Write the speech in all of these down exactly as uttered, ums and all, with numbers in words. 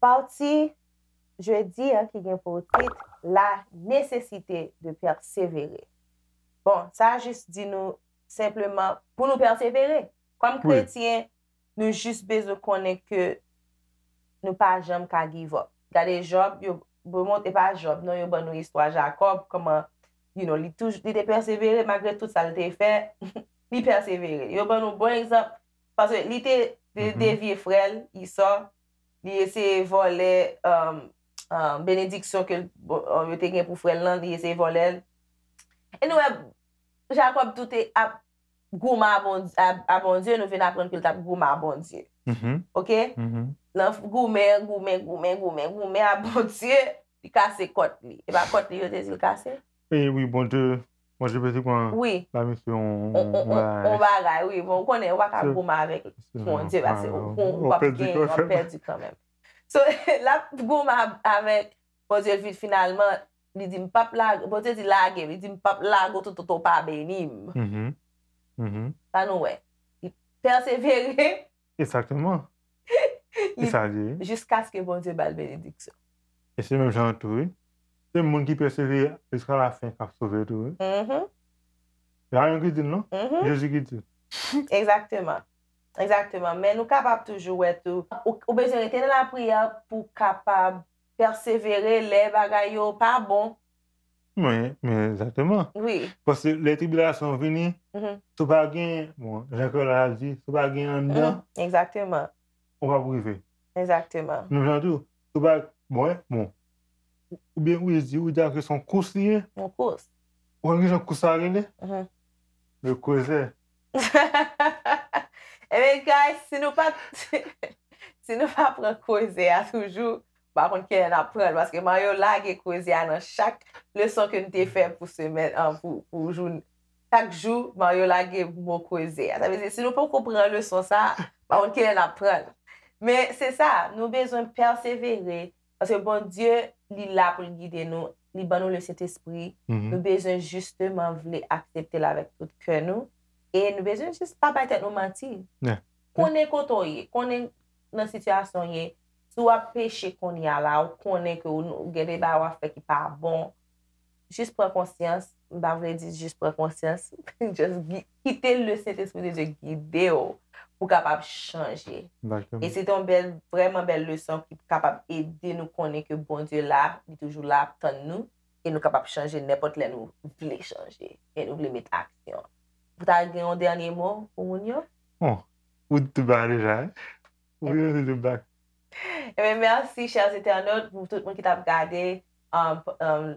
Pati jedi an ki gen pou tit La nécessité de persévérer. Bon, sa a jis di nou senpleman pou nou pèsevere. Kòm kretyen, nou jis bezwen konnen ke nou pa janm ka give up. Gade Jòb, yo, bon, e pa Jòb, non, yo ban nou istwa Jakòb, kòman, you know, li touj-, li te pèsevere malgre tout sa l te fè, li pèsevere. Yo ban nou bon egzanp, paske li te, te devye frè l, Esau, li eseye vòlè, um, um, benediksyon ke l, bon, um, yo te gen pou frè l lan, li eseye vòlè l. E nou wè, Jakòb tou te ap goumen a Bondye, a, a Bondye, nou vin aprann ke l t ap goumen a Bondye. Oke? Nan goumen, goumen, goumen, goumen, goumen a Bondye, li kase kòt li. E pa kòt li yo te di l kase? E wi, Bondye, Bondye pete pran la misyon, on bagay, wi. Bon, ou konnen, ou pa ka goumen avèk Bondye, paske ou, ou p ap genyen, w ap pèdi kanmenm. So, l ap goumen avèk Bondye, l vin finalman, li di, "M p ap lage," Bondye di, "Lage m." Li di, "M p ap lage w toutotan w pa beni m." Sa nou wè. Li pèsevere. Egzakteman. E sa l ye. Jiskaske Bondye ba l benediksyon. E se menm jan tou, wi. Se moun ki pèsevere jiska lafen k ap sove tou, wi. Se pa mwen ki di l, non. Jezi ki di l. Egzakteman. Egzakteman. Men nou kapab toujou wè tou. Ou, ou bezwen rete nan lapriyè pou w kapab pèsevere lè bagay yo pa bon. Men, men egzakteman. Wi. Paske lè tribilasyon vini, si w pa gen, bon, jan Kèl la di, si w pa gen anndan, egzakteman, ou p ap rive. Egzakteman. Menm jan tou, si w pa, bon, bon. Oubyen ou di, ou di ke se yon kous li ye. Yon kous. Ou konn ki jan kous sa rele? Le creuset. Ebyen, guys, si nou pa, si nou pa pran creuset a toujou, m pa konn kilè n ap pran l, paske Mario lage creuset a nan chak leson ke n te fè pou semèn, an, pou, pou jou, chak jou, Mario lage mo creuset a. Sa vle di, si nou poko pran leson sa a, m pa konn kilè n ap pran l. Men se sa, nou bezwen pèsevere, paske Bondye, li la pou l gide nou, li ban nou Lesentespri. Nou bezwen jisteman vle aksepte l avèk tout kè nou, e nou bezwen jis pa bay tèt nou manti. Konnen kote w ye, konnen nan sitiyasyon w ye. Si w ap peche kounye a la, ou konnen ke w, ou gen de bagay w ap fè ki pa bon, jis pran konsyans. M pa vle di jis pran konsyans. Just gi-, kite Lesentespri de Dye gide w pou w kapab chanje. E se te yon bèl, vrèman bèl leson ki kapab ede nou konnen ke Bondye la, li toujou la ap tann nou, e nou kapab chanje nenpòt lè nou vle chanje, e nou vle met aksyon. Ou ta gen yon dènye mo pou moun yo? Bon, ou di tout bagay deja, wi. Ou vin di tout bagay. Ebyen, mèsi, chè entènot, pou tout moun ki t ap gade, um, um,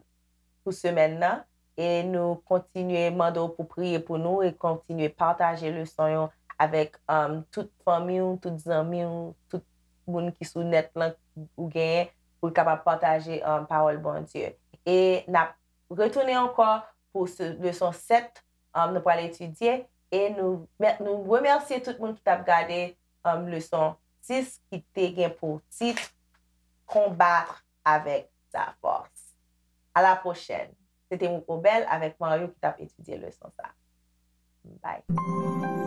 pou semèn nan. E nou kontinye mande w pou priye pou nou e kontinye pataje leson yo avèk, um, tout fanmi w, tout zanmi w, tout moun ki sou nèt lan ou genyen pou l kapab pataje, um, pawòl Bondye. E n ap retounen ankò pou se, leson sèt, um, nou pral etidye. E nou, nou remèsye tout moun ki t ap gade, um, leson sis ki te gen pou tit Combattre avec sa force. À la prochaine. Se te Mouko Bèl avèk Mario ki t ap etidye leson sa. Bye.